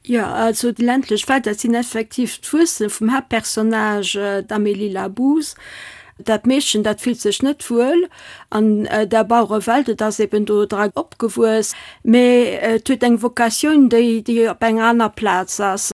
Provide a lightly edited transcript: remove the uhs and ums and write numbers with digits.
Jo, also déi ländlech Welt, dat sinn effektiv d'Wuerzele vum Haaptpersonnage, d'Amélie Labouze. Dat Meedchen, dat fillt sech net wuel an der Bauerewelt, et ass eben do dra opgewuess, mee et huet eng Vocatioun, déi, déi op enger aner Plaz ass.